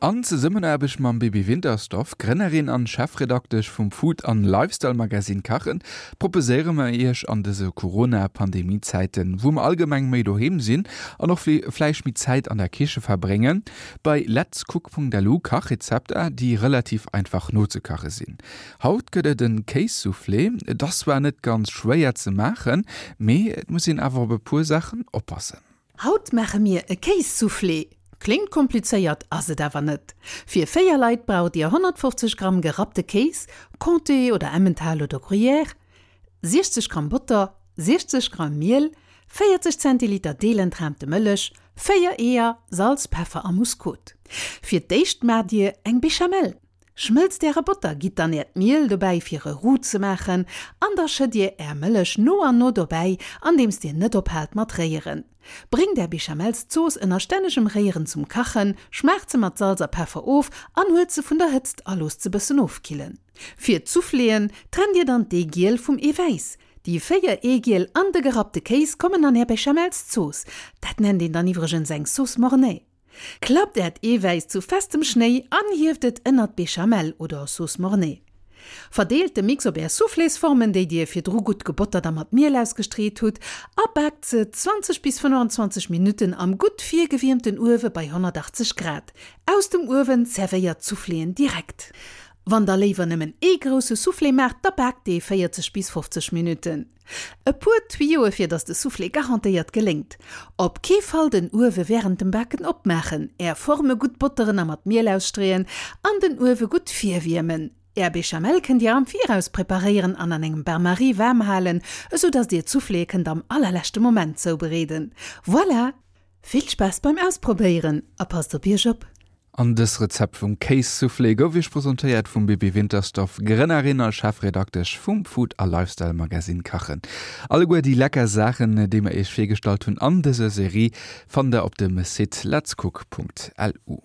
An Zesummenaarbecht mam Bibi Wintersdorf, Grënnerin an Chefredaktesch vum Food an Lifestyle Magazine Kachen, proposéiere mer iech an dëse Corona-Pandemie-Zäiten, wou mer allgemeng méi doheem sinn an och vläicht méi Zäit an der Kiche verbréngen, bei letscook.lu Kachrezepter, déi relativ einfach nozekache sinn. Haut gëtt et en Kéissoufflé. Et ass zwar net ganz schwéier ze maachen, mee et muss een awer op e puer Saachen oppassen. Haut maache mir e Kéissoufflé. Kléngt komplizéiert, ass et awer net. Fir 4 Leit braucht dir 150 Gramm gerappte Kéis, Comté oder Emmental oder Gruyère, 60 Gramm Botter, 60 Gramm Miel, 40 Zentiliter deelentraamte Mëllech, 4 Eeër, Salz, Peffer a Muskot. Fir d'éischt maacht dir eng Béchamel. Schmëlzt äre Botter, gitt dann äert Miel dobäi fir e Roux ze maachen an da schëtt dir är Mëllech no an no dobäi andeems dir net ophaalt mat réieren. Bréngt är Béchamelszooss ënner stännegem Réieren zum Kachen, schmaacht se mat Salz a Peffer of an huelt se vun der Hëtzt a loosst se bëssen ofkillen. Fir d'Souffléen trennt dir dann d'Eegiel vum Eewäiss. Déi 4 Eegiel an de gerappte Kéis kommen an är Béchamelszooss. Dat nennt een dann iwwregens eng Sauce Mornay. Klappt äert Eewäiss zu festem Schnéi an hieft et ënnert d'Béchamel oder Sauce Mornay. Verdeelt de Mix op är Soufflésformen, déi dir virdru gutt gebottert a mat Miel ausgestreet hutt, a baakt se 20 bis 25 Minutten am gutt virgewiermten Uewe bei 180 Grad. Aus dem Uewen zerwéiert d'Souffléen direkt. Wann der léiwer nëmmen ee grousse Soufflé maacht, da baakt dee 40 bis 50 Minutten. E puer Tuyoe fir dass de Soufflé garantéiert geléngt. Op kee Fall den Uewe wärend dem Baken opmaachen. Är Forme gutt botteren a mat Miel ausstreeën an den Uewe gutt virwiermen. Är Béchamel kënnt dir am Viraus preparéieren an an engem Bain-Marie waarm halen, esou dass dir d'Souffléë kënnt am allerleschte Moment zoubereeden. Voilà! Vill Spaass beim Ausprobéieren a passt op iech op! An dës Rezept vum Kéissoufflé gouf iech presentéiert vum Bibi Wintersdorf, Grënnerin a Chefredaktesch vum Food a Lifestyle Magazine Kachen. Alleguer déi lecker Saachen, déi mer iech virgestallt hunn an dëser Serie, fannt der op dem Site letscook.lu.